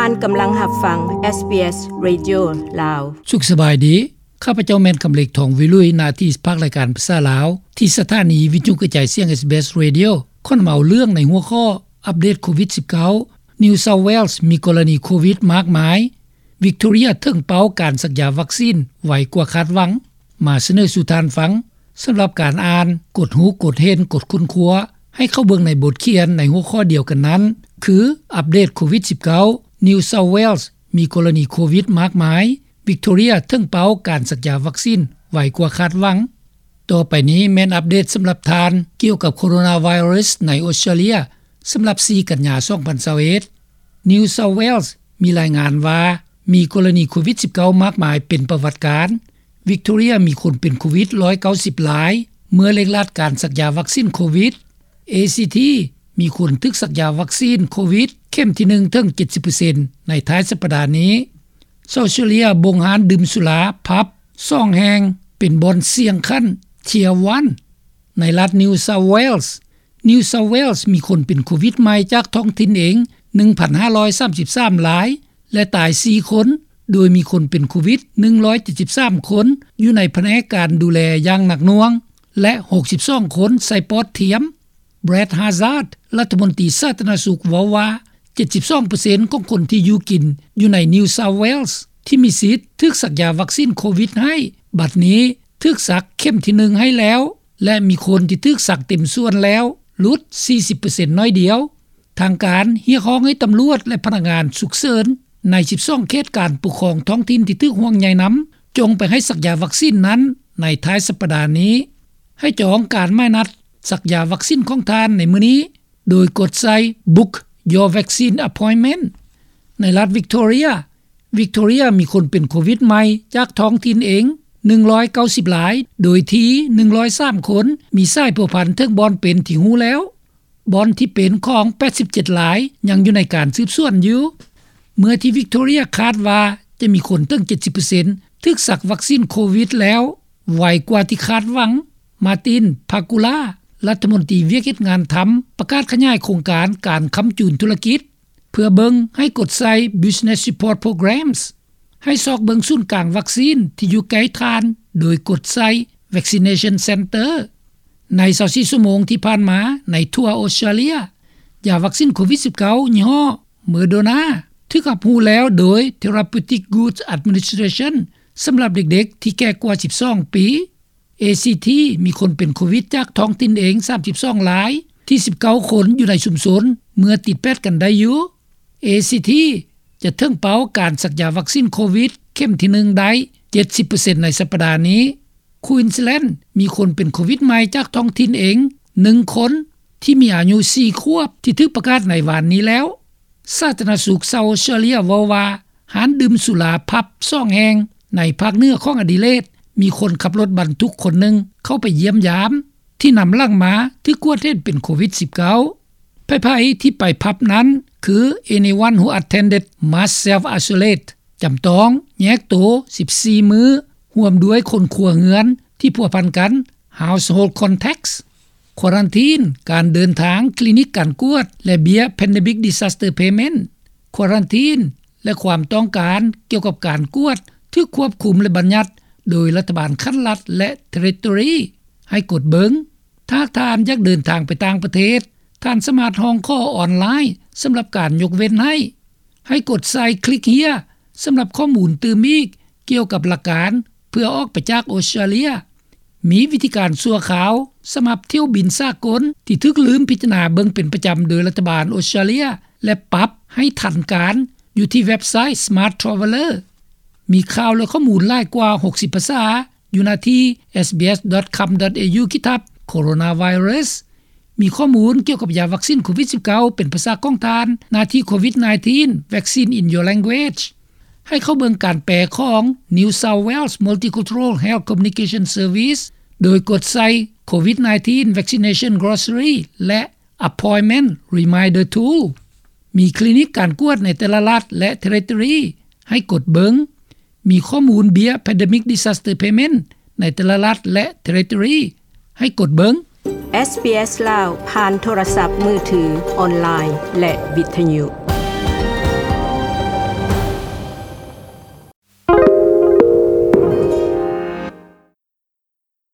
ທ່ານກຳລັງຮັບຟັງ ເອສບີເອສ ເຣດິໂອ ລາວ. ສຸກສະບາຍດີ. ຂ້າພະເຈົ້າແມ່ນຄຳເລັກ ທອງວິລຸຍ, ໜ້າທີ່ພາກລາຍການພາສາລາວ ທີ່ສະຖານີວິທະຍຸກະຈາຍສຽງ ເອສບີເອສ ເຣດິໂອ ຂໍນຳເອົາເລື່ອງໃນຫົວຂໍ້ ອັບເດດໂຄວິດສິບເກົ້າ New South Wales ມີກໍລະນີໂຄວິດມາກມາຍ, Victoria ເຖິງເປົ້າການສັກຢາວັກຊີນໄວກວ່າຄາດຫວັງ ມາສະເໜີສູ່ທ່ານຟັງ. ສຳລັບການອ່ານ, ກົດຮູ້, ກົດເຫັນ, ກົດຄົ້ນຄວ້າ, ໃຫ້ເຂົ້າເບິ່ງໃນບົດຂຽນໃນຫົວຂໍ້ດຽວກັນນັ້ນ ຄື ອັບເດດໂຄວິດສິບເກົ້າ New South Wales ມີກໍລະນີໂຄວິດມາກມາຍ, Victoria ເຖິງເປົ້າການສັກຢາວັກຊີນໄວກວ່າຄາດຫວັງ. ຕໍ່ໄປນີ້ແມ່ນອັບເດດສຳລັບທ່ານ ກ່ຽວກັບໂຄໂຣນາໄວຣັສໃນອົດສະຕຣາເລຍ ສຳລັບສີ່ກັນຍາ ສອງພັນຊາວເອັດ. New South Wales ມີລາຍງານວ່າ ມີກໍລະນີໂຄວິດສິບເກົ້າມາກມາຍເປັນປະຫວັດການ, Victoria ມີຄົນເປັນໂຄວິດຮ້ອຍເກົ້າສິບລາຍ ເມື່ອເລັ່ງລັດການສັກຢາວັກຊີນໂຄວິດ, ACT ມີຄົນຖືກສັກຢາວັກຊີນໂຄວິດເຂັມທີໜຶ່ງເຖິງເຈັດສິບເປີເຊັນໃນທ້າຍສັບປະດານີ້. ເຊົາເຊເລຍບົງຮ້ານດື່ມສຸລາ, ຜັບ ສອງແຫ່ງ ເປັນບ່ອນສ່ຽງຂັ້ນ Tier one ໃນລັດ New South Wales. New South Wales ມີຄົນເປັນໂຄວິດໃໝ່ຈາກທ້ອງຖິ່ນເອງ ໜຶ່ງພັນຫ້າຮ້ອຍສາມສິບສາມລາຍ ແລະ ຕາຍສີ່ຄົນ, ໂດຍມີຄົນເປັນໂຄວິດໜຶ່ງຮ້ອຍເຈັດສິບສາມຄົນຢູ່ໃນພະແນກການດູແລຢ່າງໜັກໜ່ວງ ແລະ ຫົກສິບສອງຄົນໃສ່ປອດທຽມ. Brad Hazzard ລັດຖະມົນຕີສາທາລະນະສຸກເວົ້າວ່າ ເຈັດສິບສອງເປີເຊັນຂອງຄົນທີ່ຢູ່ກິນຢູ່ໃນ New South Wales ທີ່ມີສິດຖືກສັກຢາວັກຊີນໂຄວິດໃຫ້ ບັດນີ້ຖືກສັກເຂັມທີໜຶ່ງໃຫ້ແລ້ວ ແລະ ມີຄົນທີ່ຖືກສັກເຕັມສ່ວນແລ້ວ ຫຼຸດສີ່ສິບເປີເຊັນໜ້ອຍດຽວ. ທາງການຮຽກຮ້ອງໃຫ້ຕຳຫຼວດ ແລະ ພະນັກງານສຸກເສີນໃນສິບສອງເຂດການປົກຄອງທ້ອງຖິ່ນທີ່ຖືກຫ່ວງໃຍນຳ ຈົ່ງໄປໃຫ້ສັກຢາວັກຊີນນັ້ນໃນທ້າຍສັບປະດານີ້. ໃຫ້ຈອງການໝາຍນັດສັກຢາວັກຊີນຂອງທ່ານໃນມື້ນີ້ ໂດຍກົດໃສ່ Book Your Vaccine Appointment. ໃນລັດ Victoria, Victoria ມີຄົນເປັນໂຄວິດໃໝ່ຈາກທ້ອງຖິ່ນເອງ ໜຶ່ງຮ້ອຍເກົ້າສິບລາຍ, ໂດຍທີ່ ໜຶ່ງຮ້ອຍສາມຄົນ ມີສາຍພົວພັນເຖິງບ່ອນເປັນທີ່ຮູ້ແລ້ວ. ບ່ອນທີ່ເປັນຂອງ ແປດສິບເຈັດລາຍ ຍັງຢູ່ໃນການສືບສວນຢູ່. ເມື່ອທີ່ Victoria ຄາດວ່າຈະມີຄົນເຖິງ ເຈັດສິບເປີເຊັນ ຖືກສັກວັກຊີນໂຄວິດແລ້ວ ໄວກວ່າທີ່ຄາດຫວັງ, Martin Pakula ລັດຖະມົນຕີວຽກເຮັດງານທຳ ປະກາດຂະຫຍາຍໂຄງການການຄ້ຳຈູນທຸລະກິດ ເພື່ອເບິ່ງໃຫ້ກົດໃສ່ Business Support Programs. ໃຫ້ຊອກເບິ່ງສູນກາງວັກຊີນທີ່ຢູ່ໃກ້ທ່ານ ໂດຍກົດໃສ່ Vaccination Center. ໃນຊາວສີ່ຊົ່ວໂມງທີ່ຜ່ານມາໃນທົ່ວອົດສະຕຣາເລຍ, ຢາວັກຊີນໂຄວິດສິບເກົ້າຍີ່ຫໍ້ Moderna ຖືກຮັບຮູ້ແລ້ວໂດຍ Therapeutic Goods Administration ສຳລັບເດັກໆທີ່ແກ່ກວ່າສິບສອງປີ. ACT ມີຄົນເປັນໂຄວິດຈາກທ້ອງຖິ່ນເອງ ສາມສິບສອງລາຍ, ທີ່ ສິບເກົ້າຄົນຢູ່ໃນຊຸມຊົນເມື່ອຕິດແປດກັນໄດ້ຢູ່. ACT ຈະເຖິງເປົ້າການສັກຢາວັກຊີນໂຄວິດເຂັມທີໜຶ່ງໄດ້ ເຈັດສິບເປີເຊັນໃນສັບປະດານີ້. Queensland ມີຄົນເປັນໂຄວິດໃໝ່ຈາກທ້ອງຖິ່ນເອງ ໜຶ່ງຄົນ ທີ່ມີອາຍຸສີ່ຂວບ ທີ່ຖືກປະກາດໃນວານນີ້ແລ້ວ. ສາທາລະນະສຸກເຊົາອົດສະຕຣາເລຍເວົ້າວ່າ ຮ້ານດື່ມສຸລາ ຜັບ ສອງແຫ່ງໃນພາກເໜືອຂອງອະດີເລດ ມີຄົນຂັບລົດບັນທຸກຄົນໜຶ່ງເຂົ້າໄປຢ້ຽມຢາມ ທີ່ນຳຫຼັງມາຖືກກວດເຫັນເປັນໂຄວິດສິບເກົ້າ. ໃຜໆທີ່ໄປຜັບນັ້ນຄື Anyone who attended must self isolate ຈຳຕ້ອງແຍກໂຕ ສິບສີ່ມື້ ຮ່ວມດ້ວຍຄົນຄົວເຮືອນທີ່ພົວພັນກັນ Household Contacts, ຄວາຣັນທີນການເດີນທາງ, ຄລີນິກການກວດ ແລະ ເບ້ຍ Pandemic Disaster Payment. ຄວາຣັນທີນ ແລະ ຄວາມຕ້ອງການກ່ຽວກັບການກວດ ຖືກຄວບຄຸມ ແລະ ບັນຍັດໂດຍລັດຖະບານຂັ້ນລັດ ແລະ ເທຣິໂຕຣີ. ໃຫ້ກົດເບິ່ງ. ຖ້າທ່ານຢາກເດີນທາງໄປຕ່າງປະເທດ, ທ່ານສາມາດຮ້ອງຂໍອອນລາຍສຳລັບການຍົກເວັ້ນໃຫ້. ໃຫ້ກົດໃສ່ Click Here ສຳລັບຂໍ້ມູນຕື່ມອີກກ່ຽວກັບຫຼັກການເພື່ອອອກໄປຈາກອົດສະຕຣາເລຍ. ມີວິທີການຊົ່ວຄາວສຳລັບຖ້ຽວບິນສາກົນທີ່ຖືກລືມພິຈາລະນາເບິ່ງເປັນປະຈຳໂດຍລັດຖະບານອົດສະຕຣາເລຍ ແລະ ປັບໃຫ້ທັນການຢູ່ທີ່ເວັບໄຊ Smart Traveller. ມີຂ່າວ ແລະ ຂໍ້ມູນຫຼາຍກວ່າຫົກສິບພາສາຢູ່ໜ້າທີ່ SBS.com.au ຂີດທັບ Coronavirus. ມີຂໍ້ມູນກ່ຽວກັບຢາວັກຊີນໂຄວິດສິບເກົ້າເປັນພາສາຂອງທ່ານ, ໜ້າທີ່ COVID nineteen Vaccine in Your Language. ໃຫ້ເຂົ້າເບິ່ງການແປຂອງ New South Wales Multicultural Health Communication Service ໂດຍກົດໃສ່ COVID nineteen Vaccination Glossary ແລະ Appointment Reminder Tool. ມີຄລີນິກການກວດໃນແຕ່ລະລັດ ແລະ ເທຣິໂຕຣີ ໃຫ້ກົດເບິ່ງ. ມີຂໍ້ມູນເບ້ຍ Pandemic Disaster Payment ໃນແຕ່ລະລັດ ແລະ ເທຣິໂຕຣີ ໃຫ້ກົດເບິ່ງ. SBS ລາວ ຜ່ານໂທລະສັບມືຖື, ອອນລາຍ ແລະ ວິທະຍຸ.